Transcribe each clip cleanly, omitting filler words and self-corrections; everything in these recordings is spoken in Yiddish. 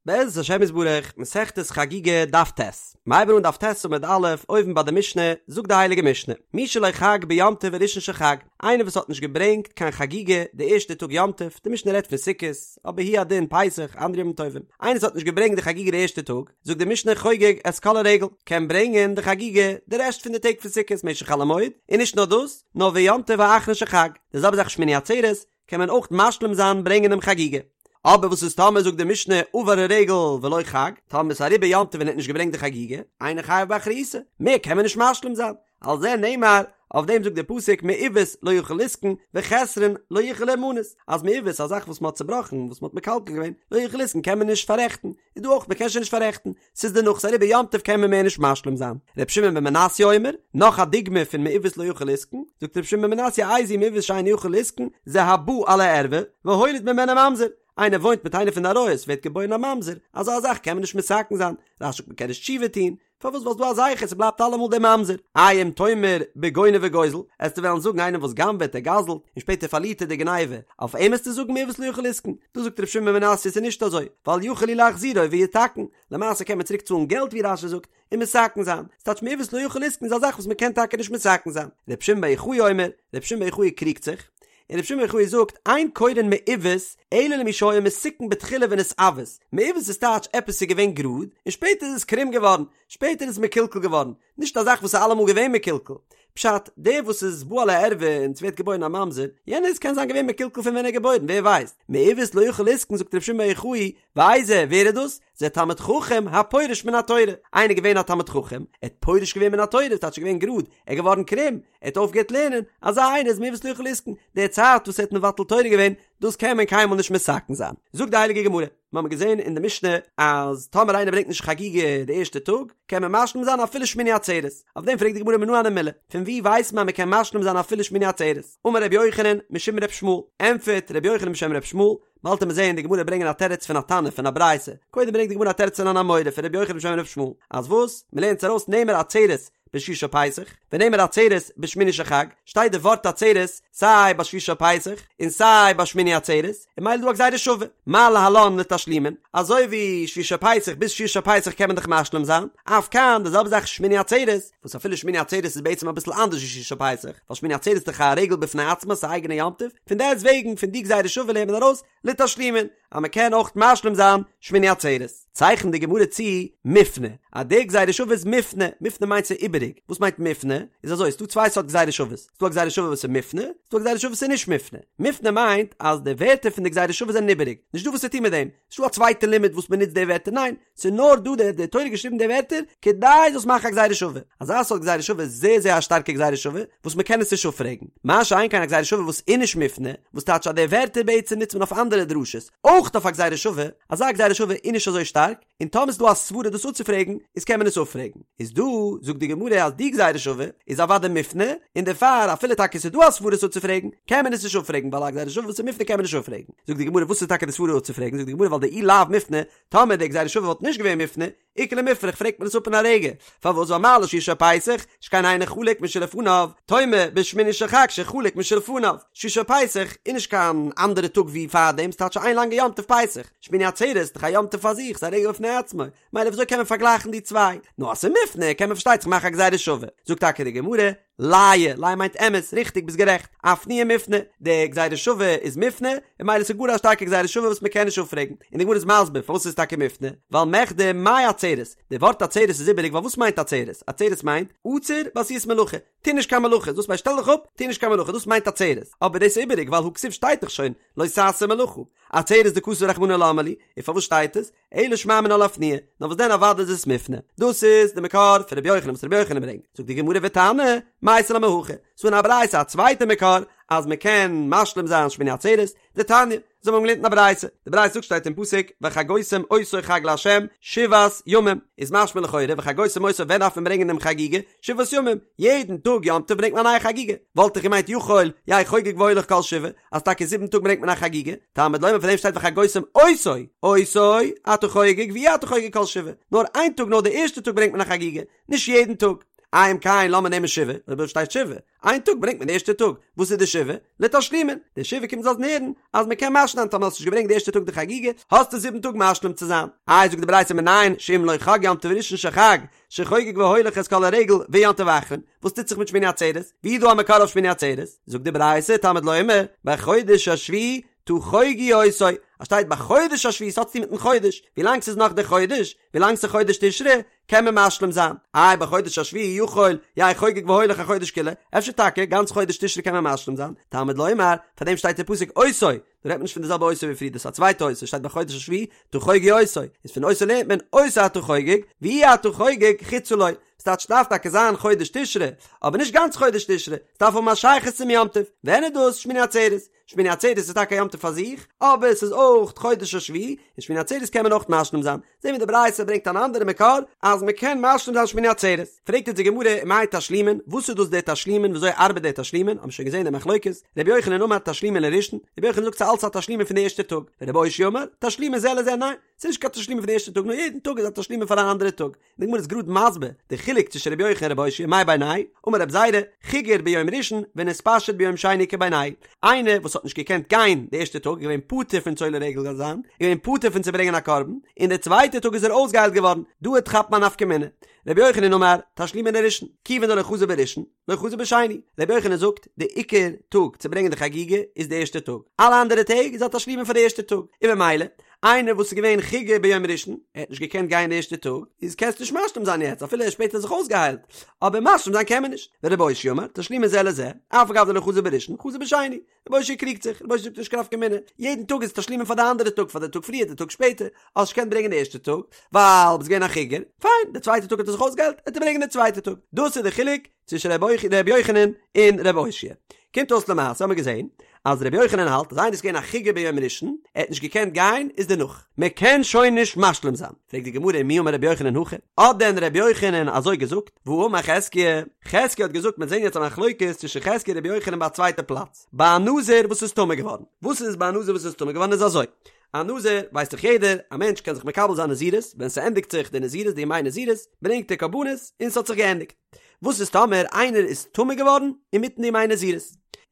בעזרת השם יתברך, מסכת חגיגה, דף ט'. מ'הייבן אן דף ט' עמוד א', אויבן ביי די משנה, זאגט די הייליגע משנה, מי שלא חג ביום טוב הראשון של חג, איינער וואס האט נישט געברענגט קיין חגיגה די ערשטע טאג יום טוב, די משנה רעדט פון סוכות, אבער הוא הדין פסח, אנדערע ימים טובים, איינער וואס האט נישט געברענגט די חגיגה די ערשטע טאג, זאגט די משנה חוגג את כל הרגל, קען ברענגען די חגיגה די רעשט פון די טעג פון סוכות משך חול המועד, און נישט נאר דאס, נאר ויום טוב האחרון של חג, די זעלבע זאך שמיני עצרת, קען מען אויך משלים זיין ברענגען דעם חגיגה. אבער וואס איז טאמער זאגט די משנה עבר הרגל ולא חג, טאמער איז אריבער יום טוב און ער האט נישט געברענגט די חגיגה, אינו חייב באחריותו, מער קען מען נישט משלים זיין, על זה נאמר, אויף דעם זאגט דער פסוק מעוות לא יוכל לתקון וחסרון לא יוכל להימנות, אז מעוות א זאך וואס מען האט צובראכן, וואס מען האט מקלקל געווען, לא יוכל לתקון קען מען נישט פאררעכטן, איז דא אויך מען קען שוין נישט פאררעכטן, ס'איז דערנאך ס'איז אריבער יום טוב קען מען מער נישט משלים זיין. ר' שמעון בן מנסיא אומר, נאך א דוגמא פון מעוות לא יוכל לתקון, זאגט ר' שמעון בן מנסיא איזהו מעוות שאינו יכול לתקון, זה הבא על הערווה, והוליד ממנה ממזר, איינער וואוינט מיט איינער פון די עריות ווערט געבוירן א ממזר, אזא זאך קען מען נישט מתקן זיין, רש"י זאגט מען קען נישט תשובה טון, פארוואס ווייל ס'דא א זכר ס'בלייבט אלעמאל דער ממזר, איי אם תאמר בגונב וגוזל, עסטו וועלן זאגן איינער וואס גנב'עט ער גזל'ט און שפעטער פארלירט ער די גניבה, אויף אים עסטו זאגן מעוות לא יוכל לתקון, דא זאגט ר' שמעון בן מנסיא ס'איז נישט אזוי, ווייל יכול הוא להחזירו ויתקן, למעשה קען מען צוריק צאלן געלט ווי רש"י זאגט, און מתקן זיין, ס'טייטש מעוות לא יוכל לתקון איז א זאך וואס מ'קען טאקע נישט מתקן זיין, ר' שמעון בר יוחאי אומר, ר' שמעון בר יוחאי קריגט זיך, און ר' שמעון בר יוחאי זאגט, אין קורין מעוות אלא למי שהיה מתוקן בתחילה ונתעוות, מעוות איז טייטש עפעס איז געווען גראד און שפעטער איז עס קרום געווארן, שפעטער איז עס מקולקל געווארן, נישט א זאך וואס איז אלעמאל געווען מקולקל. פשט, דער וואס איז בא על הערווה און ס'ווערט געבוירן א ממזר, יענער איז קען זיין געווען מקולקל פון ווען ער איז געבוירן, ווער ווייסט. מעוות לא יוכל לתקון זאגט ר' שמעון בר יוחאי, ואיזה, ווער איז דאס? זה תלמיד חכם הפורש מן התורה, איינער געווען א תלמיד חכם, ער האט פורש געווען מן התורה, ס'טייטש ער איז געווען גראד, ער איז געווארן קרום, ער האט אויפגעהערט לערנען, אזא איינער איז מעוות לא יוכל לתקון, די צייט וואס ער האט מבטל תורה געווען, דאס קען מען קיינמאל נישט מתקן זיין. זאגט די הייליגע גמרא, מיר האבן געזען אין די משנה אז טאמער איינער ברענגט נישט חגיגה די ערשטע טאג, קען מען משלים זיין אפילו שמיני עצרת, אויף דעם פרעגט די גמרא מנא הני מילי, פון וואו ווייסט מען אז מען קען משלים זיין אפילו שמיני עצרת? אמר רבי יוחנן משום ר' ישמעאל, ענטפערט רבי יוחנן בשם ר' ישמעאל, באלד וועט מען זעהן די גמרא ברענגען א תירוץ פון א תנא פון א ברייתא, קודם ברענגט די גמרא א תירוץ פון אן אמורא פון רבי יוחנן בשם ר' ישמעאל, אז וואס? מען לערנט עס ארויס נאמר עצרת בשביעי של פסח, ונאמר עצרת בשמיני של חג, שטייט די ווארט עצרת סיי ביי שביעי של פסח און סיי ביי שמיני עצרת, און ממילא דא א גזירה שווה, מה להלן לתשלומין, אזוי ווי שביעי של פסח ביז שביעי של פסח קען מען דאך משלים זיין, אף כאן די זעלבע זאך שמיני עצרת, וואס אפילו שמיני עצרת איז בעצם אביסל אנדערש ווי שביעי של פסח, ווייל שמיני עצרת איז דאך א רגל בפני עצמו, ס'איז א אייגענע יום טוב, פון דעסט וועגן פון די גזירה שווה לערנט מען ארויס לתשלומין, אז מען קען אויך משלים זיין שמיני עצרת. צייכנט די גמרא צו מופנה, אז די גזירה שווה איז מופנה, מופנה מיינט ס'איז איבעריג, וואס מיינט מופנה? איז אזוי, ס'דא צוויי סארט גזירה שוות, ס'דא א גזירה שווה וואס איז מופנה, ס'דא א גזירה שווה וואס איז נישט מופנה. מופנה מיינט אז די ווערטער פון די גזירה שווה זענען איבעריג, נישטא וואס צו טון מיט דעם, נישטא א צווייטע לימוד וואס מען נוצט די ווערטער, ניין, ס'איז נאר דא די די תורה געשריבן די ווערטער כדי זאלסט מאכן א גזירה שווה. אזא סארט גזירה שווה איז זייער זייער א שטארקע גזירה שווה וואס מען קען עס נישט אפפרעגן. מה שאין כן א גזירה שווה וואס איז נישט מופנה, וואס טייטש אז די ווערטער בעצם נוצט מען אויף אנדערע דרשות, אויך אויף א גזירה שווה, אזא גזירה שווה איז נישט אזוי שטארק, און טאמער איז דא א סברה דאס אפצופרעגן, איז קען מען עס אפפרעגן. איז דא, זאגט די גמרא אז די גזירה שווה איז אוודאי מופנה, און דערפאר אפילו טאקע ס'איז דא א סברה עס אפצופרעגן, קען מען עס נישט אפפרעגן ווייל א גזירה שווה וואס איז מופנה קען מען נישט אפפרעגן. זאגט די גמרא וואס איז טאקע די סברה אפצופרעגן, זאגט די גמרא ווייל דאי לאו מופנה, טאמער די גזירה שווה וואלט נישט געווען מופנה, איכא למיפרך פרעגט מען עס אפ אין א רגע, פארוואס ווייל מה לשביעי של פסח, שכן אינו חלוק משלפניו, תאמר בשמיני של חג שחלוק משלפניו, שביעי של פסח איז נישט קיין אנדערע טאג ווי פארדעם, ס'טייטש איין לאנגע יום טוב פסח, שמיני עצרת איז דאך א יום טוב פאר זיך, ס'איז א רגל בפני עצמו, מילא וויאזוי קען מען פארגלייכן די צוויי? נאר אז ס'איז מופנה קען מען פארשטייט זיך מאכן א גזירה שווה, זאגט טאקע די גמרא, לאיי, לאיי מיינט אמת, ריכטיג, ביסט גערעכט, אפנויי מופנה, די גזירה שווה איז מופנה, און מילא ס'איז גאר א שטארקע גזירה שווה וואס מ'קען נישט אפפרעגן, און די גמרא איז מסביר פארוואס ס'איז טאקע מופנה, ווייל מכדי מאי עצרת, די ווארט עצרת איז איבעריג ווייל וואס מיינט עצרת? עצרת מיינט, עצור בעשיית מלאכה, טו נישט קיין מלאכה, דאס מיינט שטעל דיך אפ, טו נישט קיין מלאכה, דאס מיינט עצרת, אבער דאס איז איבעריג ווייל הא כתיב שטייט דאך שוין, לא תעשה מלאכה, עצרת דכתב רחמנא למה לי, און פארוואס שטייט עס? אלא שמע מינה לאפנויי, נאר וואס דען אוודאי איז עס מופנה. דאס איז די מקור פון רבי יוחנן וואס רבי יוחנן ברענגט. זאגט די גמרא ותנא, מייתי לה מהכא, ס'דא אין א ברייתא א צווייטע מקור אז מען קען משלים זיין שמיני עצרת, דתניא, אזוי האבן מיר געלערנט אין א ברייתא, די ברייתא זאגט שטייט אין פסוק וחגותם אותו חג לה' שבעת ימים, איז משמע לכאורה וחגותם אותו ווען דארף מען ברענגען דעם חגיגה? שבעת ימים, יעדן טאג יום טוב ברענגט מען א נייע חגיגה, וואלט איך געמיינט יכול יהא חוגג והולך כל שבעה, אז טאקע זיבן טאג ברענגט מען א חגיגה, תלמוד לומר פאר דעם שטייט וחגותם אותו, אותו אתה חוגג ואי אתה חוגג כל שבעה, נאר איין טאג נאר די ערשטע טאג ברענגט מען א חגיגה, נישט יעדן טאג. איי אם כן לאמיר נעמען שבעה, אויב אזוי שטייט שבעה, איין טאג ברענגט מען די ערשטע טאג, וואס איז די שבעה? לתשלומין, די שבעה קומט לאזן הערן אז מען קען משלים זיין טאמער האסט נישט געברענגט די ערשטע טאג די חגיגה, האסטו זיבן טאג משלים צו זיין. איי זאגט די ברייתא מנין שאם לא חג יום טוב ראשון של חג, שחוגג והולך את כל הרגל ויום טוב אחרון, וואס טוט זיך מיט שמיני עצרת? ווי איז דא א מקור אויף שמיני עצרת? זאגט די ברייתא תלמוד לומר, בחודש השביעי תחוגו אותו, אז שטייט בחודש השביעי ס'האט צוטון מיטן חודש, ווילאנג ס'איז נאך די חודש, ווילאנג ס'איז חודש תשרי, קען מען משלים זיין. איי בחודש השביעי יכול יהא חוגג והולך החודש כולו, אפשר טאקע גאנץ חודש תשרי קען מען משלים זיין, תלמוד לומר, פאר דעם שטייט אין פסוק אותו, דא רעדט מען נישט פון די זעלבע אותו ווי פריער דאס איז א צווייטע אותו, שטייט בחודש השביעי תחוגו אותו, איז פון אותו לערנט מען אותו אתה חוגג, ואי אתה חוגג חוצה לו, ס'טייטש ס'דארף טאקע זיין חודש תשרי, אבער נישט גאנץ חודש תשרי, ס'דארף האבן א שייכות צום יום טוב, ווען איז דאס שמיני עצרת? שמיני עצרת איז טאקע א יום טוב פאר זיך, אבער עס איז אויך חודש השביעי, און שמיני עצרת קען מען אויך משלים זיין. זעהן מיר די ברייתא ברענגט אן אנדערע מקור אז מען קען משלים זיין שמיני עצרת. פרעגט אונז די גמרא מאי תשלומין, וואס איז דאס די תשלומין, וויאזוי ארבעט די תשלומין, האבן שוין געזעהן די מחלוקת, רבי יוחנן אמר תשלומין לראשון, רבי יוחנן זאגט ס'איז אלץ א תשלומין פון די ערשטע טאג, ורבי אושעיא אמר תשלומין זה לזה, ניין, ס'איז נישט קיין תשלומין פון די ערשטע טאג נאר יעדן טאג איז א תשלומין פאר אן אנדערע טאג. די גמרא איז גראד מסביר די חילוק צווישן רבי יוחנן און רבי אושעיא מאי בינייהו, אמר רבי זירא, חיגר ביום ראשון ונתפשט ביום שני איכא בינייהו, איינער וואס האט נישט געקענט גיין די ערשטע טאג איז געווען פטור פון צו עולה רגל זיין, איז געווען פטור פון צו ברענגען א קרבן, און די צווייטע טאג איז ער אויסגעהיילט געווארן, דא וועט כאפן א נפקא מינה. רבי יוחנן אמר, תשלומין לראשון, כיוון דלא חזי בראשון, לא חזי בשני. רבי יוחנן זאגט, די עיקר טאג צו ברענגען די חגיגה איז די ערשטע טאג, אלע אנדערע טעג איז א תשלומין פאר די ערשטע טאג, און ממילא, איינער וואס איז געווען חיגר ביום ראשון, ער האט נישט געקענט גיין די ערשטע טאג, איז קענסט נישט משלים זיין יעצט אפילו ער איז שפעטער זיך אויסגעהיילט, אבער משלים זיין קען מען נישט. ורבי אושעיא אמר, תשלומין זה לזה, אף על גב דלא חזי בראשון, חזי בשני. רבי אושעיא קריגט זיך, רבי אושעיא זאגט נישט קיין נפקא מינה, יעדן טאג איז תשלומין פאר די אנדערע טאג, פאר די טאג פריער, די טאג שפעטער, האסט נישט געקענט ברענגען די ערשטע טאג, ווייל ביסט געווען א חיגר, פיין, די צווייטע טאג האט ער זיך אויסגעהיילט, וועט ער ברענגען די צווייטע טאג. דאס איז די חילוק צווישן רבי יוחנן און רבי אושעיא. קומט אויס למעשה האמיר געזען אז רבי יוחנן האלט אז איינער איז געווען א חיגר ביום ראשון, ער האט נישט געקענט גיין, איז דערנאך. מען קען שוין נישט משלים זיין. פרעגט די גמרא ומי אמר רבי יוחנן הכי? האט דען רבי יוחנן אזוי געזאגט? והאמר חזקיה, חזקיה האט געזאגט, מיר זעהן יעצט א מחלוקת צווישן חזקיה און רבי יוחנן ביי א צווייטע פלאץ, ביי א נזיר וואס איז טמא געווארן. וואס איז ביי א נזיר וואס איז טמא געווארן איז אזוי, א נזיר ווייסט דאך יעדער, א מענטש קען זיך מקבל זיין נזירות, ווען ס'ענדיגט זיך די נזירות, די ימי נזירות, ברענגט ער קרבנות און ס'האט זיך געענדיגט. וואס איז טאמער איינער איז טמא געווארן אינמיטן די ימי נזירות?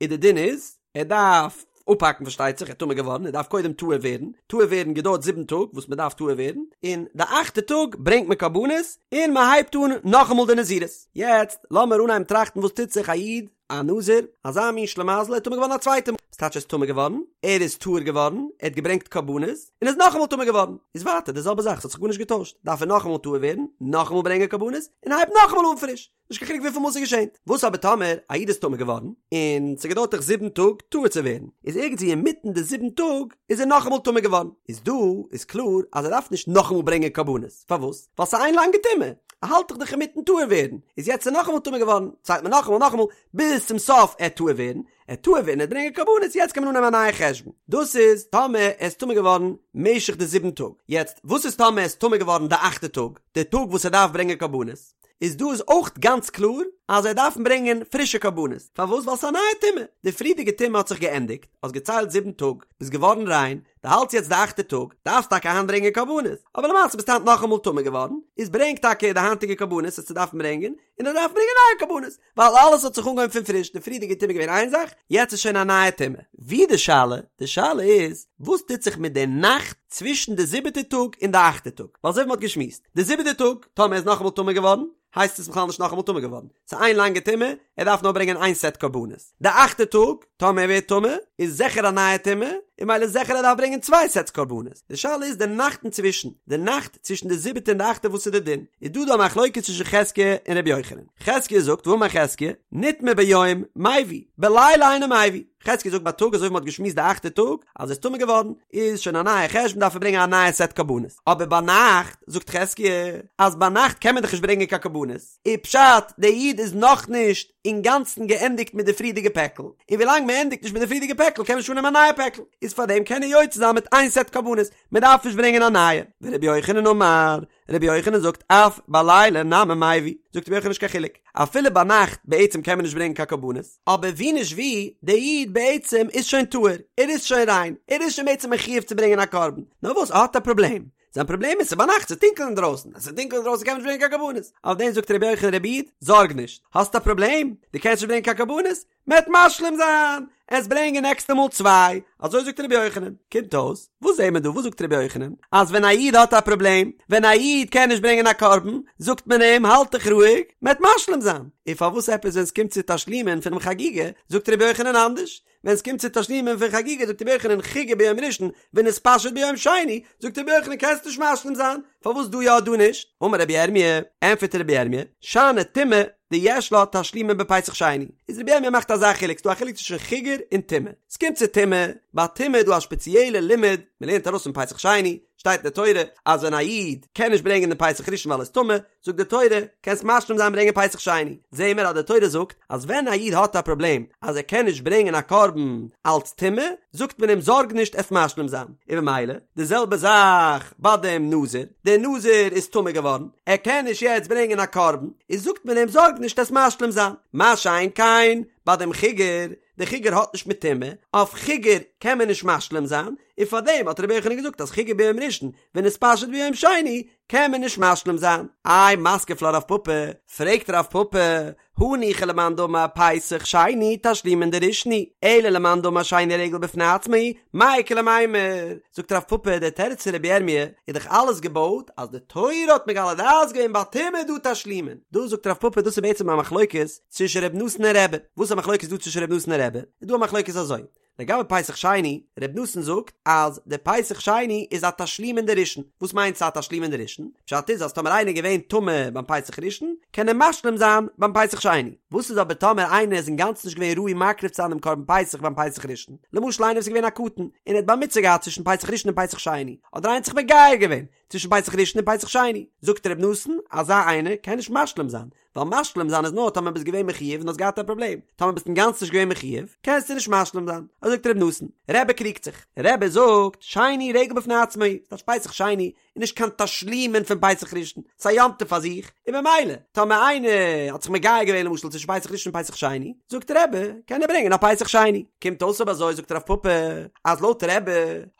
איז די דין איז, ער דארף אפהאקן פארשטייט זיך, ער איז טמא געווארן, ער דארף קודם טהור ווערן, טהור ווערן געדויערט זיבן טאג וואס מען דארף טהור ווערן, און די אכטע טאג ברענגט מען קרבנות און מען הייבט אן נאכאמאל די נזירות. יעצט לאמיר אנהייבן טראכטן וואס טוט זיך א איד, א נזיר, אזא מין שלימזל, ער איז טמא געווארן א צווייטע מאל, וואס טייטש ער איז טמא געווארן? ער איז טהור געווארן, ער האט געברענגט קרבנות, און איז נאכאמאל טמא געווארן, איז ווייטער די זעלבע זאך, ס'האט זיך גארנישט געטוישט, דארף ער נאכאמאל טהור ווערן, נאכאמאל ברענגען קרבנות, און הייבט נאכאמאל אן פריש, נישט קיין חילוק וויפיל מאל ס'איז געשען. וואס אבער טאמער א איד איז טמא געווארן, און ס'געדויערט דאך זיבן טאג טהור צו ווערן, איז ערגעץ ווי אינמיטן די זיבן טאג איז ער נאכאמאל טמא געווארן, איז דא איז קלאר אז ער דארף נישט נאכאמאל ברענגען קרבנות, פארוואס? ווייל ס'איז איין לאנגע טומאה, ער האלט דאך דאך אינמיטן טהור ווערן, איז יעצט איז ער נאכאמאל טמא געווארן, ציילט מען נאכאמאל נאכאמאל, ביז צום סוף ער טהור ווערן, ער טהור ווערן ער ברענגען קרבנות יעצט קען מען אנהייבן א נייע חשבון דאס איז טאמער ער איז טמא געווארן משך די זיבן טאג יעצט וואס איז טאמער ער איז טמא געווארן די אכטע טאג די טאג וואס ער דארף ברענגען קרבנות איז דא איז אויך גאנץ קלאר אז ער דארף ברענגען פרישע קרבנות פארוואס ווייל ס'איז א נייע טומאה די פריערדיגע טומאה האט זיך געענדיגט האסט געציילט זיבן טאג ביסט געווארן ריין דו האלטסט יעצט די אכטע טאג דארפסט טאקע היינט ברענגען קרבנות אבער למעשה ביסטו היינט נאכאמאל טמא געווארן איז ברענג טאקע די היינטיגע קרבנות וועסטו דארפן ברענגען און ער דארף ברענגען נייע קרבנות ווייל אלעס האט זיך אנגעהויבן פון פריש, די פריערדיגע טומאה איז געווען איין זאך, יעצט איז שוין א נייע טומאה. ווי די שאלה? די שאלה איז, וואס טוט זיך מיט די נאכט צווישן די זיבעטע טאג און די אכטע טאג? ווייל אזוי ווי מ'האט געשמועסט, די זיבעטע טאג, טאמער ער איז נאכאמאל טמא געווארן, הייסט עס בכלל נישט נאכאמאל טמא געווארן, ס'איז איין לאנגע טומאה, ער דארף נאר ברענגען איין סעט קרבנות. די אכטע טאג, טאמער ער ווערט טמא, איז זיכער א נייע טומאה, און ממילא זיכער ער דארף ברענגען צוויי סעטס קרבנות. די שאלה איז די נאכט אינצווישן, די נאכט צווישן די זיבעטע און די אכטע וואס איז די דין? איז דא דא א מחלוקת צווישן חזקיה און רבי יוחנן. חזקיה זאגט ואמר חזקיה, נטמא ביום, מביא, בלילה אינו מביא. חזקיה זאגט בייטאג אזוי ווי מ'האט געשמועסט די אכטע טאג, אז ער איז טמא געווארן, איז שוין א נייע חשבון דארף ער ברענגען א נייע סעט קרבנות. אבער ביינאכט, זאגט חזקיה, אז ביינאכט קען מען דאך נישט ברענגען קיין קרבנות, איז פשט, דער איד איז נאכנישט אינגאנצן געענדיגט מיט די פריערדיגע פעקל, און ווילאנג מען ענדיגט נישט מיט די פריערדיגע פעקל קען מען נישט אננעמען א נייע פעקל, איז פארדעם קען ער יוצא זיין מיט איין סעט קרבנות, מען דארף נישט ברענגען א נייע. ורבי יוחנן אמר, רבי יוחנן זאגט אף בלילה נמי מביא, זאגט רבי יוחנן נישט קיין חילוק, אפילו ביינאכט בעצם קען מען נישט ברענגען קיין קרבנות, אבער ווי נישט ווי, דער איד בעצם איז שוין טהור, ער איז שוין ריין, ער איז שוין בעצם מחויב צו ברענגען א קרבן, נאר וואס ער האט א פראבלעם, זיין פראבלעם איז ס'איז ביינאכט ס'איז טונקל אינדרויסן, אז ס'איז טונקל אינדרויסן קען מען נישט ברענגען קיין קרבנות, אויף דעם זאגט רבי יוחנן רבי איד, זארג נישט, האסט א פראבלעם? דו קענסט נישט ברענגען קיין קרבנות? מ'עט משלים זיין, עסט ברענגען נעקסטע מאל צוויי, אזוי זאגט רבי יוחנן, קומט אויס, וואס זעהן מיר דא, וואס זאגט רבי יוחנן? אז ווען א איד האט א פראבלעם, ווען א איד קען נישט ברענגען א קרבן, זאגט מען אים האלט דיך רואיג, מ'עט משלים זיין, און פארוואס עפעס ווען ס'קומט צו תשלומין פונעם חגיגה, זאגט רבי יוחנן אנדערש? ווען ס'קומט צו תשלומין פון חגיגה זאגט רבי יוחנן חיגר ביום ראשון ונתפשט ביום שני, זאגט רבי יוחנן קענסט נישט משלים זיין, פארוואס דא יא דא נישט? אמר רבי ירמי', ענפערט רבי ירמי', שאני טומאה דיש לה תשלומין בפסח שני, איז רבי ירמי' מאכט אזא חילוק, ס'דא א חילוק צווישן חיגר און טומאה, ס'קומט צו טומאה, ביי טומאה איז דא א שפעציעלע לימוד, מ'לערנט ארויס פון פסח שני, שטייט אין די תורה אז ווען א איד קען נישט ברענגען דעם פסח ראשון ווייל ער איז טמא, זאגט די תורה, קענסט משלים זיין ברענגען פסח שני, זעהן מיר אז די תורה זאגט אז ווען א איד האט א פראבלעם אז ער קען נישט ברענגען א קרבן אלץ טומאה, זאגט מען אים זארג נישט עסט משלים זיין, און במילא די זעלבע זאך ביי דעם נזיר, דער נזיר איז טמא געווארן, ער קען נישט יעצט ברענגען א קרבן, איז זאגט מען אים זארג נישט עסט משלים זיין, מה שאין כן ביי דעם חיגר, דער חיגר האט נישט מיט טומאה, אויף חיגר קען מען נישט משלים זיין, און פארדעם האט רבי יוחנן געזאגט אז חיגר ביום ראשון ונתפשט ביום שני קען מען נישט משלים זיין. איי מתקיף לה רב פפא, פרעגט רב פפא, הניחא למאן דאמר פסח שני תשלומין דראשון הוא, אלא למאן דאמר שני רגל בפני עצמו, מאי איכא למימר? זאגט רב פפא, דער תירוץ פון רבי ירמי' איז דאך אלעס געבויט אז די תורה האט מגלה דעת געווען ביי טומאה איז דא תשלומין. דא זאגט רב פפא דאס איז בעצם א מחלוקת צווישן ר' נתן און רבי. וואס איז א מחלוקת דא צווישן ר' נתן און רבי? איז דא א מחלוקת אזוי, לגבי פסח שני, ר' נתן זאגט אז די פסח שני איז א תשלומין דראשון, וואס מיינט ס'א תשלומין דראשון? פשט איז אז טאמער איינער איז געווען טמא ביים פסח ראשון, קען ער משלים זיין ביים פסח שני. וואס איז אבער טאמער איינער איז אינגאנצן נישט געווען ראוי מקריב צו זיין דעם קרבן פסח ביים פסח ראשון? למשל איינער וואס איז געווען א קטן און ער האט בר מצוה געהאט צווישן פסח ראשון און פסח שני, אדער איינער האט זיך מגייר געווען צווישן פסח ראשון און פסח שני, זאגט ר' נתן, אזא איינער קען נישט משלים זיין, ווייל משלים זיין איז נאר טאמער ביסט געווען מחויב און האסט געהאט א פראבלעם, טאמער ביסט אינגאנצן נישט געווען מחויב, קענסטו נישט משלים זיין, אזוי זאגט ר' נתן. רבי קריגט זיך, רבי זאגט, שני רגל בפני עצמו, ס'טייטש פסח שני איז נישט קיין תשלומין פון פסח ראשון, ס'איז א יום טוב פאר זיך, און ממילא, טאמער איינער האט זיך מגייר געווען למשל צווישן פסח ראשון און פסח שני, זאגט רבי, קען ער ברענגען א פסח שני. קומט אויס אויב אזוי זאגט רב פפא, אז לויט רבי,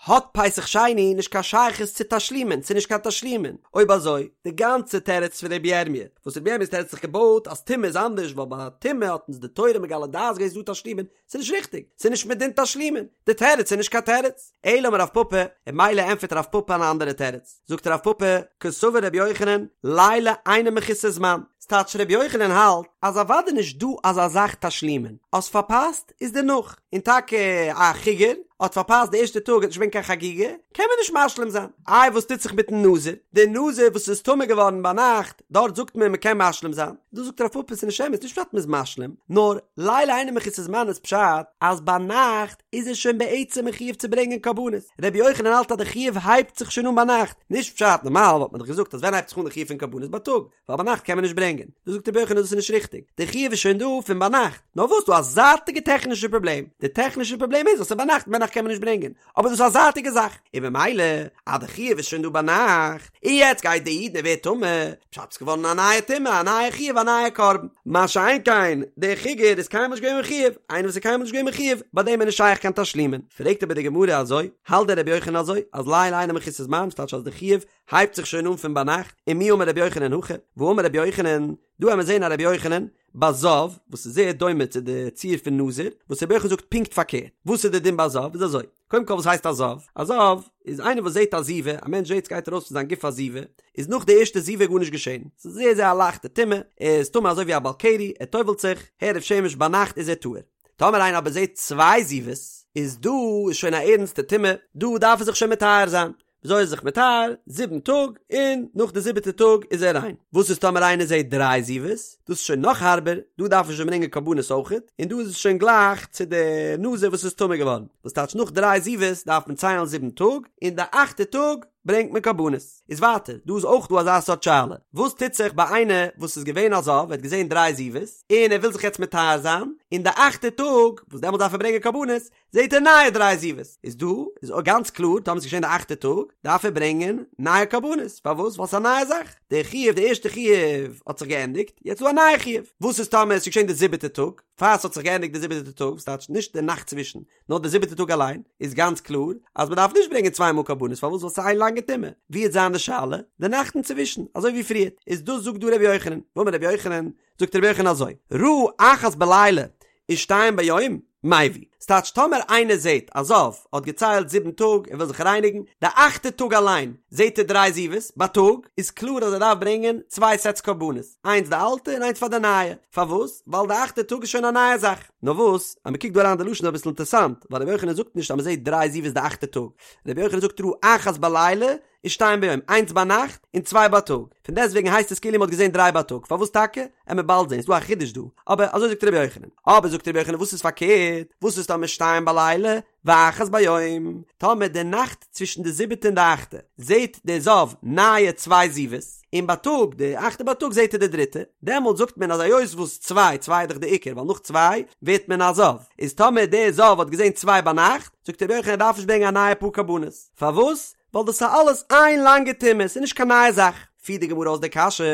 האט פסח שני נישט קיין שייכות צו תשלומין, ס'איז נישט קיין תשלומין, אויב אזוי, די גאנצע תירוץ פון רבי ירמי', וואס רבי ירמי'ס תירוץ האט זיך געבויט אז טומאה איז אנדערש ווייל ביי טומאה האט אונז די תורה מגלה דעת געווען ס'איז דא תשלומין, ס'איז נישט ריכטיג, ס'איז נישט מדין תשלומין, די תירוץ איז נישט קיין תירוץ. אלא אמר רב פפא, און ממילא ענטפערט רב פפא אן אנדערע תירוץ, זאגט רב פפא, קסבר רבי יוחנן, לילה אינו מחוסר זמן, ס'טייטש רבי יוחנן האלט אז אוודאי נישט דא אזא זאך תשלומין, האסט פארפאסט איז דערנאך, און טאקע א חיגר האט פארפאסט די ערשטע טאג האט נישט געווען קיין חגיגה, קען מען נישט משלים זיין. איי וואס טוט זיך מיטן נזיר? דער נזיר וואס איז טמא געווארן ביינאכט, דארט זאגט מען מ'קען משלים זיין. דא זאגט רב פפא ס'איז נישט אמת, נישט פשט מ'איז משלים, נאר לילה אינו מחוסר זמן איז פשט אז ביינאכט איז ער שוין בעצם מחויב צו ברענגען קרבנות. רבי יוחנן האלט אז די חיוב הייבט זיך שוין אן ביינאכט, נישט פשט, נארמאל וואלט מען דאך געזאגט אז ווען הייבט זיך אן די חיוב פון קרבנות בייטאג, ווייל ביינאכט קען מען נישט ברענגען. דא זאגט רבי יוחנן דאס איז נישט ריכטיג, די חיוב איז שוין דא פון ביינאכט, נאר וואס דא א זייטיגע טעכנישע פראבלעם, די טעכנישע פראבלעם איז אז ס'איז ביינאכט און ביינאכט קען מען נישט ברענגען, אבער דאס איז א זייטיגע זאך, און במילא אז די חיוב איז שוין דא ביינאכט, און יעצט גייט די איד און ווערט טמא, פשט ס'איז געווארן א נייע טומאה, א נייע חיוב, א נייע קרבן. מה שאין כן, דער חיגר איז קיינמאל נישט געווען מחויב, איינער וואס איז קיינמאל נישט געווען מחויב, ביי דעם איז נישט שייך קיין תשלומין. פרעגט אבער די גמרא אזוי, האלט דען רבי יוחנן אזוי, אז לילה אינו מחוסר זמן, ס'טייטש אז די חיוב הייבט זיך שוין אן פון ביינאכט, ומי אמר רבי יוחנן הכי, והאמר רבי יוחנן, דא האמיר זעהן א רבי יוחנן, ביי זב, וואס איז זייער דומה צו די ציור פון נזיר, וואס רבי יוחנן זאגט פונקט פארקערט, וואס איז די דין ביי זב, איז אזוי, קודם כל וואס הייסט א זב? א זב איז איינער וואס זעהט א זיבה, א מענטש זעהט סגייט ארויס פון זיין גוף א זיבה, איז נאך די ערשטע זיבה גארנישט געשעהן, ס'איז זייער זייער א לייכטע טומאה, ער איז טמא אזוי ווי א בעל קרי, ער טובל'ט זיך, הערב שמש ביינאכט איז ער טהור. טאמער איינער אבער זעהט צוויי זיבות, איז דא איז שוין א ערנסטע טומאה, דא דארף ער זיך שוין מטהר זיין, וויאזוי איז זיך מטהר? זיבן טאג, און נאך די זיבעטע טאג איז ער ריין. וואס איז טאמער איינער זעט דריי זיבות? דאס איז שוין נאך הארבער, דא דארף מען שוין ברענגען קרבנות אויכעט, און דא איז עס שוין גלייך צו די נזיר וואס איז טמא געווארן, וואס טייטש נאך דריי זיבות דארף מען ציילן זיבן טאג, און די אכטע טאג ברענגט מען קרבנות. איז ווייטער, דא איז אויך דא אזא סארט שאלה, וואס טוט זיך ביי איינער וואס איז געווען א זב, ער האט געזען דריי זיבות, און ער וויל זיך יעצט מטהר זיין, און די אכטע טאג, וואס דעמאלט דארף ער ברענגען קרבנות, זעט ער נייע דריי זיבות, איז דא איז גאנץ קלאר טאמער ס'איז געשען די אכטע טאג, דארף ער ברענגען נייע קרבנות, פארוואס? ווייל ס'איז א נייע זאך, די חיוב, די ערשטע חיוב האט זיך געענדיגט, יעצט איז דא א נייע חיוב, וואס איז טאמער ס'איז געשען די זיבעטע טאג, פאר ס'האט זיך געענדיגט די זיבעטע טאג, וואס טייטש נישט די נאכט צווישן, נאר די זיבעטע טאג אליין, איז גאנץ קלאר אז מ'דארף נישט ברענגען צוויי מאל קרבנות, פארוואס? ווייל ס'איז איין לאנגע טומאה, ווי וועט זיין די שאלה? די נאכט אינצווישן, אזוי ווי פריערט, איז דאס זאגט דא רבי יוחנן, ואמר רבי יוחנן, זאגט רבי יוחנן אזוי, ראה אחת בלילה ושתיים ביום, מביא, ס'טייטש טאמער איינער זעט א זב האט געציילט זיבן טאג ער וויל זיך רייניגן, די אכטע טאג אליין זעט ער דריי זיבות בייטאג, איז קלאר אז ער דארף ברענגען צוויי סעטס קרבנות, איינס די אלטע און איינס פאר די נייע, פארוואס? ווייל די אכטע טאג איז שוין א נייע זאך. נאר וואס, אז מ'קוקט דא אריין די לשון איז אביסל אינטערסאנט, ווייל רבי יוחנן זאגט נישט אז מ'זעט דריי זיבות די אכטע טאג, רבי יוחנן זאגט ראה אחת בלילה ושתיים ביום, איינס ביינאכט און צוויי בייטאג, פון דעסטוועגן הייסט עס כאילו מ'האט געזען דריי בייטאג, פארוואס טאקע? עמיר באלד זען, ס'דא א חידוש דא, אבער אזוי זאגט רבי יוחנן. אבער זאגט רבי יוחנן וואס איז פארקערט, וואס איז טאמער שתיים בלילה ואחת ביום, טאמער די נאכט צווישן די זיבעטע און די אכטע זעט דער זב נייע צוויי זיבות, און בייטאג, די אכטע בייטאג זעט ער די דריטע, דעמאלט זאגט מען אז היות וואס צוויי, צוויי איז דאך די עיקר, ווייל נאך צוויי ווערט מען א זב, איז טאמער דער זב האט געזען צוויי ביינאכט, זאגט רבי יוחנן ער דארף נישט ברענגען א נייע פאר קרבנות, פארוואס? ווייל דאס איז אלעס איין לאנגע טומאה, ס'איז נישט קיין נייע זאך. פירט די גמרא אויס די קשיא,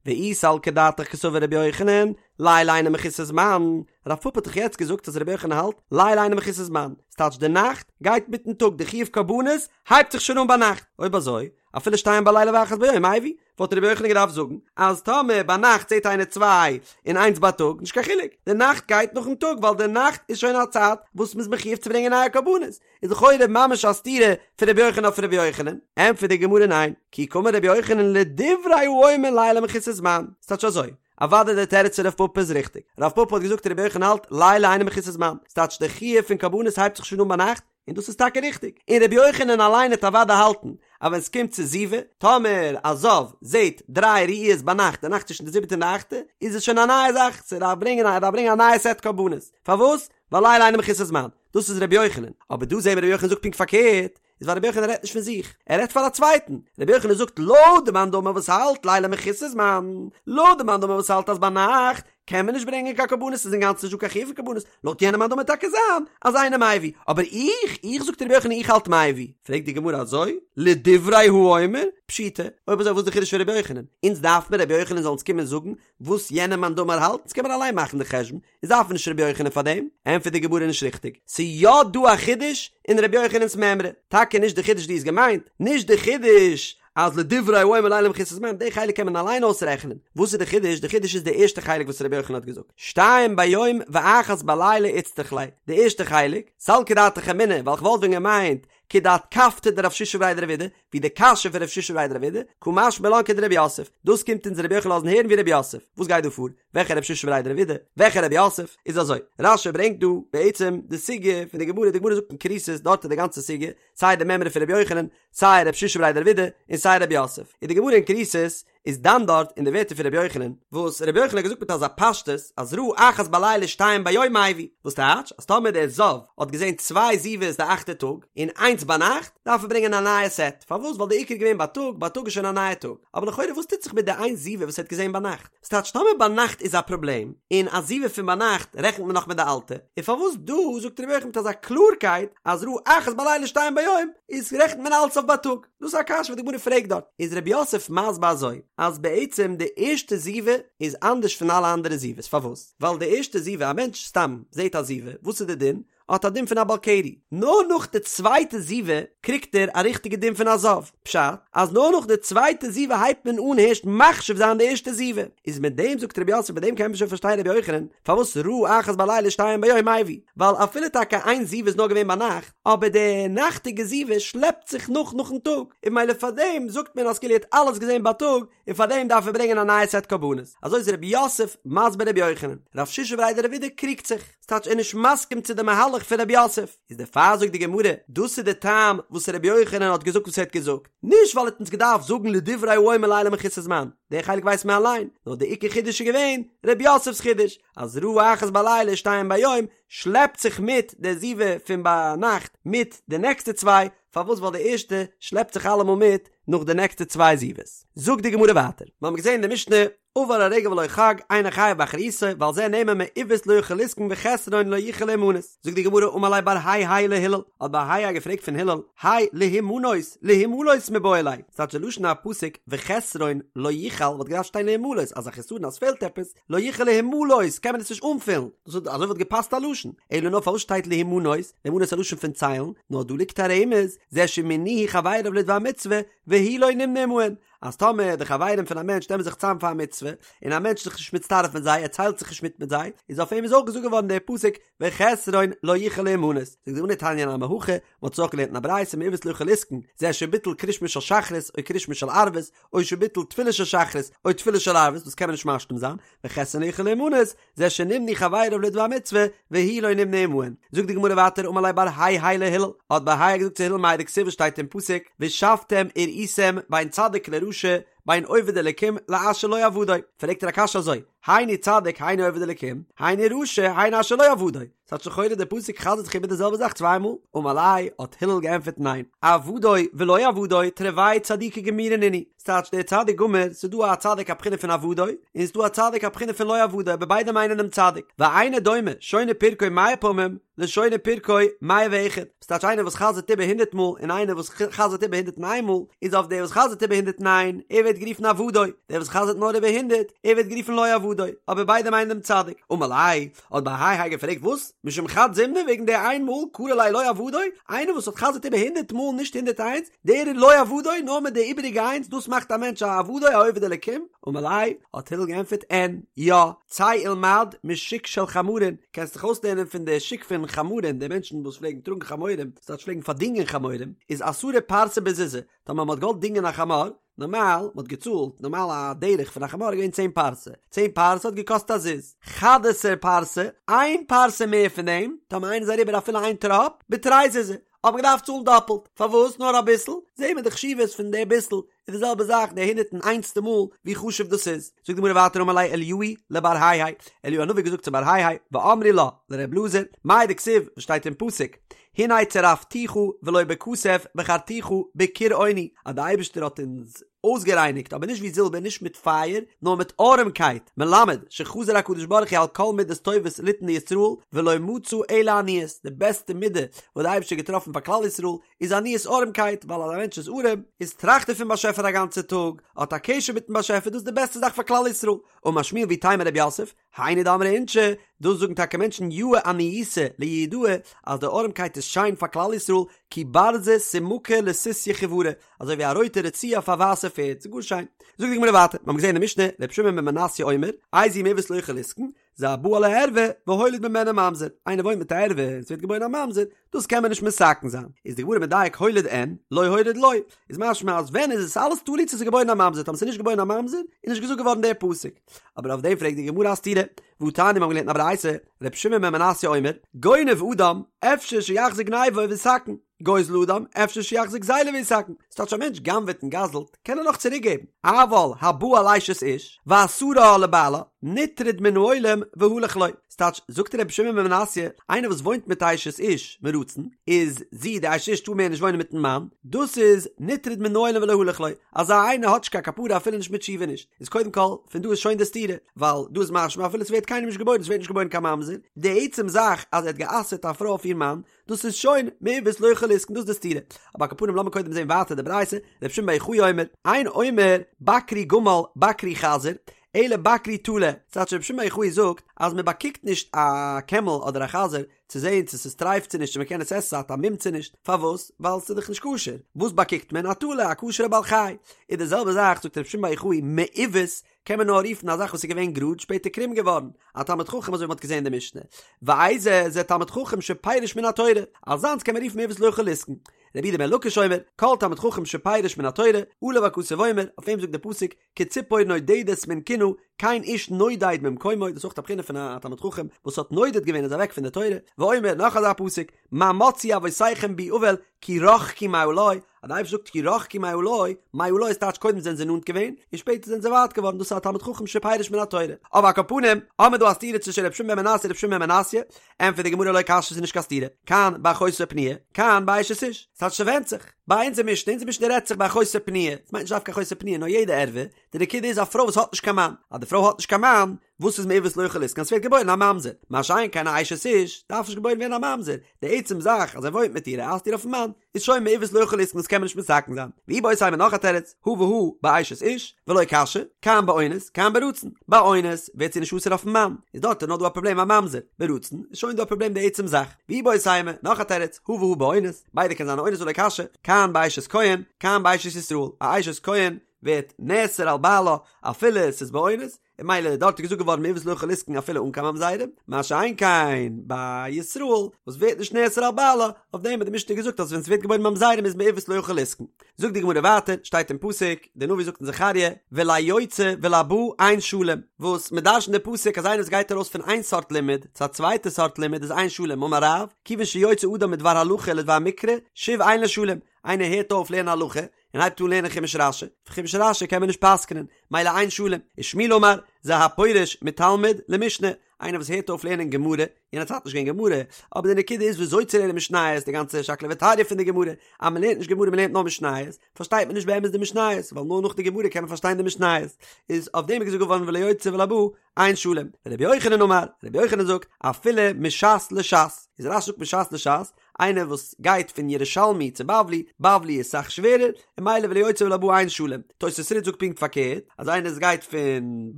ואי סלקא דעתך קסבר רבי יוחנן, לילה אינו מחוסר זמן, רב פפא האט דאך יעצט געזאגט אז רבי יוחנן האלט, לילה אינו מחוסר זמן, ס'טייטש די נאכט גייט מיטן טאג, די חיוב קרבנות הייבט זיך שוין אן ביינאכט, אויב אזוי, אפילו שתיים בלילה ואחת ביום, מביא, וואלט רבי יוחנן געדארפט זאגן אז טאמער ביינאכט זעט איינער צוויי און איינס בייטאג, נישט קיין חילוק, די נאכט גייט נאכן טאג ווייל די נאכט איז שוין א צייט וואס מ'איז מחויב צו ברענגען נייע קרבנות, איז לכאורה ממש א סתירה פון רבי יוחנן אויף רבי יוחנן, ענטפערט די גמרא ניין, כי קאמר רבי יוחנן לדברי האומר לילה מחוסר זמן, ס'טייטש אזוי, אוודאי דער תירוץ פון רב פפא איז ריכטיג, רב פפא האט געזאגט רבי יוחנן האלט לילה אינו מחוסר זמן, ס'טייטש די חיוב פון קרבנות הייבט זיך שוין אן ביינאכט, און דאס איז טאקע ריכטיג, און רבי יוחנן אליין העט אוודאי האלטן אז ווען ס'קומט צו זיבה, טאמער א זב זעט דריי ראיות ביינאכט, די נאכט צווישן די זיבעטע און די אכטע, איז עס שוין א נייע זאך, ס'דארף ברענגען ער דארף ברענגען א נייע סעט קרבנות, פארוואס? ווייל לילה אינו מחוסר זמן, דאס איז רבי יוחנן, אבער דא זעהן מיר רבי יוחנן זאגט פונקט פארקערט, איז ווייל רבי יוחנן רעדט נישט פון זיך, ער רעדט פאר א צווייטן, רבי יוחנן זאגט לויט די מאן דאמר וואס האלט לילה מחוסר זמן, לויט די מאן דאמר וואס האלט אז ביינאכט קען מען נישט ברענגען קיין קרבנות ס'איז אינגאנצן נישט דא קיין חיוב פון קרבנות, לויט יענעם מאן דאמר טאקע זיין אז אינו מביא, אבער איך, איך זאגט רבי יוחנן איך האלט מביא, פרעגט די גמרא אזוי, לדברי האומר, פשיטא, אויב אזוי וואס איז די חידוש פון רבי יוחנן, אונז דארף מיר רבי יוחנן זאל אונז קומען זאגן וואס יענער מאן דאמר האלט, אונז קען מיר אליין מאכן די חשבון, איז דארף מען נישט רבי יוחנן פאר דעם? ענטפערט די גמרא נישט ריכטיג, ס'איז יא דא א חידוש אין רבי יוחנן'ס מימרא, טאקע נישט די חידוש דו האסט געמיינט, נישט די חידוש אז לדברי האומר לילה מחוסר זמן, די חלק קען מען אליין אויסרעכענען, וואס איז די חידוש? די חידוש איז די ערשטע חלק וואס רבי יוחנן האט געזאגט, שתיים ביום ואחת בלילה איצטריך ליה, די ערשטע חלק, סלקא דעתך אמינא, ווייל כ'וואלט ווען געמיינט כדאתקפתא דרב שישא בריה דרב אידי, ווי די קשיא פון רב שישא בריה דרב אידי, קא משמע לן כדרב יוסף, דאס קומט אונז רבי יוחנן לאזן הערן ווי רב יוסף, וואס גייט דא פאר? וועלכע רב שישא בריה דרב אידי? וועלכע רב יוסף? איז אזוי, רש"י ברענגט דא בעצם די סוגיא פון די גמרא, די גמרא זאגט אין כריתות דארט איז די גאנצע סוגיא, סיי די מימרא פון רבי יוחנן, סיי רב שישא בריה דרב אידי, און סיי רב יוסף, איז די גמרא אין כריתות איז דן דארט אין די ווערטער פון רבי יוחנן, וואס רבי יוחנן האט געזאגט מיט אזא פשטות אז ראה אחת בלילה שתיים ביום מביא, וואס טייטש אז טאמער דער זב האט געזען צוויי זיבות די אכטע טאג און איינס ביינאכט, דארף ער ברענגען א נייע סעט, פארוואס ווייל די עיקר איז געווען בייטאג, בייטאג איז שוין א נייע טאג, אבער לכאורה וואס טוט זיך מיט די איין זיבה וואס ער האט געזען ביינאכט? ס'טייטש טאמער ביינאכט איז א פראבלעם, און א זיבה פון ביינאכט רעכנט מען נאך מיט די אלטע, און פארוואס דא זאגט רבי יוחנן מיט אזא קלארקייט אז ראה אחת בלילה שתיים ביום, איז רעכנט מען אלץ אויף בייטאג? דאס איז א קשיא וואס די גמרא פרעגט דארט, איז רב יוסף מסביר אזוי, אז בעצם די ערשטע זיבה איז אנדערש פון אלע אנדערע זיבות, פארוואס? ווייל די ערשטע זיבה, א מענטש סתם זעט א זיבה, וואס איז די דין? האט א דין פון א בעל קרי, נאר נאך די צווייטע זיבה קריגט ער א ריכטיגע דין פון א זב, פשט, אז נאר נאך די צווייטע זיבה הייבט מען אן הערשט מחשיב זיין די ערשטע זיבה, איז מיט דעם זאגט רב יוסף מיט דעם קען מען שוין פארשטיין רבי יוחנן, פארוואס ראה אחת בלילה שתיים ביום מביא, ווייל אפילו טאקע איין זיבה איז נאר געווען ביינאכט, אבער די נאכטיגע זיבה שלעפט זיך נאך נאכן טאג, און ממילא פארדעם זאגט מען אז כאילו ער האט אלעס געזען בייטאג, און פארדעם דארף ער ברענגען א נייע סעט קרבנות. אזוי איז רב יוסף מסביר רבי יוחנן. רב שישא בריה דרב אידי קריגט זיך, ס'טייטש ער איז נישט מסכים צו די מהלך פון רב יוסף. איז דערפאר זאגט די גמרא, דאס איז די טעם וואס רבי יוחנן האט געזאגט וואס ער האט געזאגט, נישט ווייל ער האט אונז געדארפט זאגן לדברי האומר לילה מחוסר זמן, די חלק ווייסט מען אליין, נאר די עיקר חידוש איז געווען רב יוסף'ס חידוש, אז ראה אחת בלילה שתיים ביום, שלעפט זיך מיט די זיבה פון ביינאכט מיט די נעקסטע צוויי, פארוואס ווייל די ערשטע שלעפט זיך אלעמאל מיט נאך די נעקסטע צוויי זיבות. זאגט די גמרא ווייטער, מיר האבן געזען אין די משנה, עבר הרגל ולא חג, אינו חייב באחריותו, ועל זה נאמר מעוות לא יוכל לתקון וחסרון לא יוכל להימנות. זאגט די גמרא אמר ליה בר היי היי להלל, האט בר היי היי געפרעגט פון הלל, האי להימנות, להימלות מיבעי ליה, ס'טייטש די לשון הפסוק וחסרון לא יוכל וואלט געדארפט שטיין להימלות, אז א חסרון אז ס'פעלט עפעס, לא יוכל להימלות קען מען עס נישט אנפילן, דאס וואלט אזוי וואלט געפאסט א לשון, אלא נאר פארוואס שטייט להימנות, להימנות איז א לשון פון ציילן, נאר דא ליגט א רמז, זה שמינוהו חבריו לדבר מצוה, והוא לא נמנה עמהן, אז טאמער די חברים פון א מענטש נעמען זיך צאם פאר א מצוה, און א מענטש איז זיך נישט מצטרף מיט זיי, ער ציילט זיך נישט מיט מיט זיי, איז אויף אים איז אויך געזאגט געווארן דער פסוק וחסרון לא יוכל להימנות. זאגט די גמרא תניא נמי הכי, מען האט עס אויך געלערנט אין א ברייתא מעוות לא יוכל לתקון, זה שביטל קריאת שמע של שחרית או קריאת שמע של ערבית, או שביטל תפילה של שחרית או תפילה של ערבית, דאס קען מען נישט משלים זיין, וחסרון לא יוכל להימנות, זה שנמנו חבריו לדבר מצוה, והוא לא נמנה עמהן. זאגט די גמרא ווייטער אמר ליה בר היי היי להלל, האט בר היי געזאגט צו הלל מאי דכתיב וואס שטייט אין פסוק, ושבתם וראיתם בין צדיק לרשע, בין עובד אלקים לאשר לא עבדו, פרעגט ער א קשיא אזוי, היינו צדיק היינו עובד אלקים, היינו רשע היינו אשר לא עבדו, ס'טייטש לכאורה דער פסוק חזר'ט זיך איבער די זעלבע זאך צוויי מאל, אמר ליה האט הלל געענטפערט ניין, עבדו ולא עבדו תרוייהו צדיקי גמורי נינהו, ס'טייטש דער צדיק גמור, ס'איז דא א צדיק א בחינה פון עבדו, און ס'איז דא א צדיק א בחינה פון לא עבדו, אבער ביידע מיינען דעם צדיק, ואינו דומה שונה פרקו מאה פעמים לשונה פרקו מאה ואחד, ס'טייטש איינער וואס חזר'ט איבער הונדרעט מאל און איינער וואס חזר'ט איבער הונדרעט און איין מאל, איז אויף דער וואס חזר'ט איבער הונדרעט און איין, ער ווערט גערופן עבדו, דער וואס חזר'ט נאר איבער הונדרעט, ער ווערט גערופן לא עבדו, אבער ביידע מיינען דעם צדיק, אמר ליה, האט בר היי היי געפרעגט וואס? משום חד זימנא וועגן די איין מאל קרי ליה לא עבדו? איינער וואס האט חזר'ט איבער הונדרעט מאל נישט הונדרעט איינס, דער איז לא עבדו, נאר מיט די איבעריגע איינס, דאס מאכט א מענטש א עבדו א עובד אלקים? אמר ליה, האט הלל געענטפערט אין, יא, צא ולמד משוק של חמרין, קענסט דיך אויסלערנען פון די שוק פון חמרים, די מענטשן וואס פלעגן טראגן חמורים, ס'טייטש פלעגן פארדינגען חמורים, איז עשרה פרסי בזוזא, טאמער מ'האט געוואלט דינגען א חמור, נארמאל, מ'האט געצאלט, נארמאל א דרך פון א חמור איז געווען צען פרסה, צען פרסה האט געקאסט א זוז, חד עשר פרסי, איין פרסה מער פון דעם, טאמער איינער איז אריבער אפילו איין טראפ, בתרי זוזי, האט מען געדארפט צאלן דאפלט, פארוואס נאר אביסל? זעהן מיר די חשיבות פון די ביסל, איז די זעלבע זאך די הונדערט און איינסטע מאל ווי חשוב דאס איז. זאגט די גמרא ווייטער אמר ליה אליהו לבר היי היי, אליהו הנביא האט געזאגט צו בר היי היי, ואמרי לה לר' אלעזר, מאי דכתיב, וואס שטייט אין פסוק, הנה צרפתיך ולא בכסף בחרתיך בכור עוני, אז די אייבערשטער האט אונז אויסגערייניגט אבער נישט ווי זילבער נישט מיט פייער נאר מיט ארעמקייט, מלמד שחזר הקדוש ברוך הוא על כל מידות טובות ליתן לישראל ולא מצא אלא עניות, די בעסטע מידה וואס די אייבערשטער האט געטראפן פאר כלל ישראל איז עניות ארעמקייט, ווייל אז א מענטש איז ארעם איז טראכט ער פון באשעפער א גאנצע טאג, האט א קשר מיטן באשעפער דאס איז די בעסטע זאך פאר כלל ישראל, אמר שמואל ואיתימא רב יוסף, היינו דאמרי אינשי, דאס זאגן טאקע מענטשן יאה עניותא ליהודאי, אז די ארעמקייט איז שיין פאר כלל ישראל, כי ברזא סומקא לסוסיא חיורא, אזוי ווי א רויטע רצועה אויף א ווייסע פערד, ס'איז גאר שיין. זאגט די גמרא ווייטער, מיר האבן געזען אין די משנה, ר' שמעון בן מנסיא אומר, איזהו מעוות לא יוכל לתקון, זה הבא על הערווה והוליד ממנה ממזר, איינער וואוינט מיט א ערווה און ס'ווערט געבוירן א ממזר, דאס קען מען נישט מתקן זיין, איז די גמרא מדייק הוליד אין, לא הוליד לא, איז משמע אז ווען איז עס אלעס תלוי צו ס'איז געבוירן א ממזר, טאמער ס'איז נישט געבוירן א ממזר, איז נישט געזאגט געווארן דער פסוק. אבער אויף דעם פרעגט די גמרא א סתירה, והתניא מיר האבן געלערנט אין א ברייתא, ר' שמעון בן מנסיא אומר, גונב אדם, אפשר שיחזיר גניבה ויתקן, גוזל אדם, אפשר שיחזיר גזילה ויתקן, ס'טייטש א מענטש גנב'עט און גזל'ט, קען ער נאך צוריק געבן, אבל הבא על אשת איש, ואסרה לבעלה, נטרד מן העולם והלך לו, ס'טייטש, זאגט רבי שמעון בן מנסיא, איינער וואס וואוינט מיט א אשת איש מרצון, איז זי די אשת איש טאר מער נישט וואוינען מיטן מאן, דאס איז נטרד מן העולם והלך לו, אזא איינער האט נישט קיין כפרה אפילו נישט מיט תשובה נישט, איז קודם כל, פון דא איז שוין די סתירה, ווייל דא איז משמע אפילו ס'ווערט קיינעם נישט געבוירן, ס'ווערט נישט געבוירן קיין ממזר, די עצם זאך אז ער האט גע'אסר'ט א פרוי אויף איר מאן, דאס איז שוין מעוות לא יוכל לתקון דאס איז די סתירה. אבער על כל פנים לאמיר קודם זען ווייטער די ברייתא, רבי שמעון בר יוחאי אומר, אין אומר בקרו גמל בקרו חזיר, אלא בקרו טלה, ס'טייטש רבי שמעון בר יוחאי זאגט אז מען באקוקט נישט א קעמל אדער א חזיר צו זען צו ס'איז טרייף צו נישט צו מען קען עס עסן ס'האט א מום צו נישט, פארוואס? ווייל ס'איז דאך נישט כשר, וואס באקוקט מען? א טלה, א כשר'ע בעל חי. איז די זעלבע זאך זאגט רבי שמעון בר יוחאי מעוות קען מען נאר רופן א זאך וואס איז געווען גראד שפעטער קרום געווארן, א תלמיד חכם אזוי ווי מ'האט געזען אין די משנה, ואיזה זה תלמיד חכם שפירש מן התורה, אזאנס קען מען רופן מעוות לא יוכל לתקון. רבי יהודה בן לקיש אומר, כל תלמיד חכם שפירש מן התורה, עליו הכתוב אומר, אויף אים זאגט דער פסוק, כציפור נודדת מן קנה, כן איש נודד ממקומו, דאס איז אויך א בחינה פון א תלמיד חכם וואס האט נודד געווען איז אוועק פון די תורה, ואומר, נאך אזא פסוק, מה מצאו אבותיכם בי עול, כי רחקו מעלי. אז די אייבערשטער זאגט כי רחקו מעלי, מעלי איז טייטש קודם זענען זיי נאנט געווען, און שפעטער זענען זיי ווייט געווארן, דאס איז א תלמיד חכם שפירש מן התורה. אבער על כל פנים, האמיר דא א סתירה צווישן ר' שמעון בן מנסיא און ר' שמעון בן מנסיא, ענטפערט די גמרא לא קשיא ס'איז נישט קיין סתירה, כאן באחותו פנויה, כאן באשת איש, ס'טייטש ס'ווענדט זיך, ביי אונזער משנה, אונזער משנה רעדט זיך ביי אחותו פנויה, ס'מיינט נישט דווקא אחותו פנויה נאר יעדע ערווה, די נקודה איז א פרוי וואס האט נישט קיין מאן, אז די פרוי האט נישט קיין מאן, וואס איז מעוות לא יוכל לתקון ס'ווערט געבוירן א ממזר, מה שאין כן א אשת איש, דארף נישט געבוירן ווערן א ממזר, די עצם זאך אז ער וואוינט מיט איר ער אסר'ט איר אויפן מאן, איז שוין מעוות לא יוכל לתקון דאס קען מען נישט מתקן זיין. ואיבעית אימא נאך א תירוץ, הא והא באשת איש, ולא קשיא, כאן באונס, כאן ברצון. ביי אונס ווערט זי נישט אסור אויפן מאן, איז דארט איז נאר דא א פראבלעם א ממזר, ברצון איז שוין דא א פראבלעם די עצם זאך. ואיבעית אימא נאך א תירוץ, הא והא באונס, ביידע קען זיין א אונס ולא קשיא, כאן באשת כהן, כאן באשת ישראל, א אשת כהן ווערט נאסר על בעלה אפילו עס איז באונס, און ממילא דארט איז געזאגט געווארן מעוות לא יוכל לתקון אפילו אן קיין ממזרים, מה שאין כן ביי ישראל וואס ווערט נישט נאסר על בעלה, אויף דעם האט די משנה געזאגט אז ווען ס'ווערט געבוירן ממזרים איז מעוות לא יוכל לתקון. זאגט די גמרא ווייטער, שטייט אין פסוק, דער נביא זאגט אין זכריה, וליוצא ולבא אין שלום, וואס מ'דרש'נט די פסוק אז איינער וואס גייט ארויס פון איין סארט לימוד צו א צווייטע סארט לימוד איז אין שלום, אמר רב, כיוון שיוצא אדם מדבר הלכה לדבר מקרא, שוב אין לו שלום, איינער הערט אויף לערנען הלכה, און הייבט אן לערנען חומש רשי, פון חומש רשי קען מען נישט פסק'נען, מילא אין שלום, ושמואל אמר, זה הפורש מתלמוד למשנה, איינער וואס הערט אויף לערנען גמרא, יענע צייט נישט געווען גמרא, אבער די נקודה איז וויאזוי צו לערנען משניות, די גאנצע שקלא וטריא פון די גמרא, אז מען לערנט נישט גמרא מען לערנט נאר משניות, פארשטייט מען נישט באמת די משניות, ווייל נאר נאך די גמרא קען מען פארשטיין די משניות, איז אויף דעם איז געזאגט געווארן וליוצא ולבא אין שלום, רבי יוחנן אמר, רבי יוחנן זאגט, אפילו מש"ס לש"ס, איז רש"י זאגט מש"ס לש"ס, איינער וואס גייט פון ירושלמי צו בבלי, בבלי איז סאך שווערער, און מילא וליוצא ולבא אין שלום. תוס' רי"ד זאגט פונקט פארקערט, אז איינער וואס גייט פון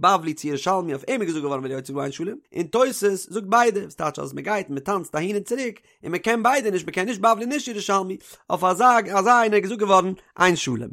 בבלי צו ירושלמי אויף אים איז געזאגט געווארן וליוצא ולבא אין שלום, און תוס' זאגט ביידע, וואס טייטש אז מען גייט און מען טאנצט אהין און צוריק, און מען קען ביידע נישט, מען קען נישט בבלי נישט ירושלמי, אויף אזא אזא איינער איז געזאגט געווארן אין שלום.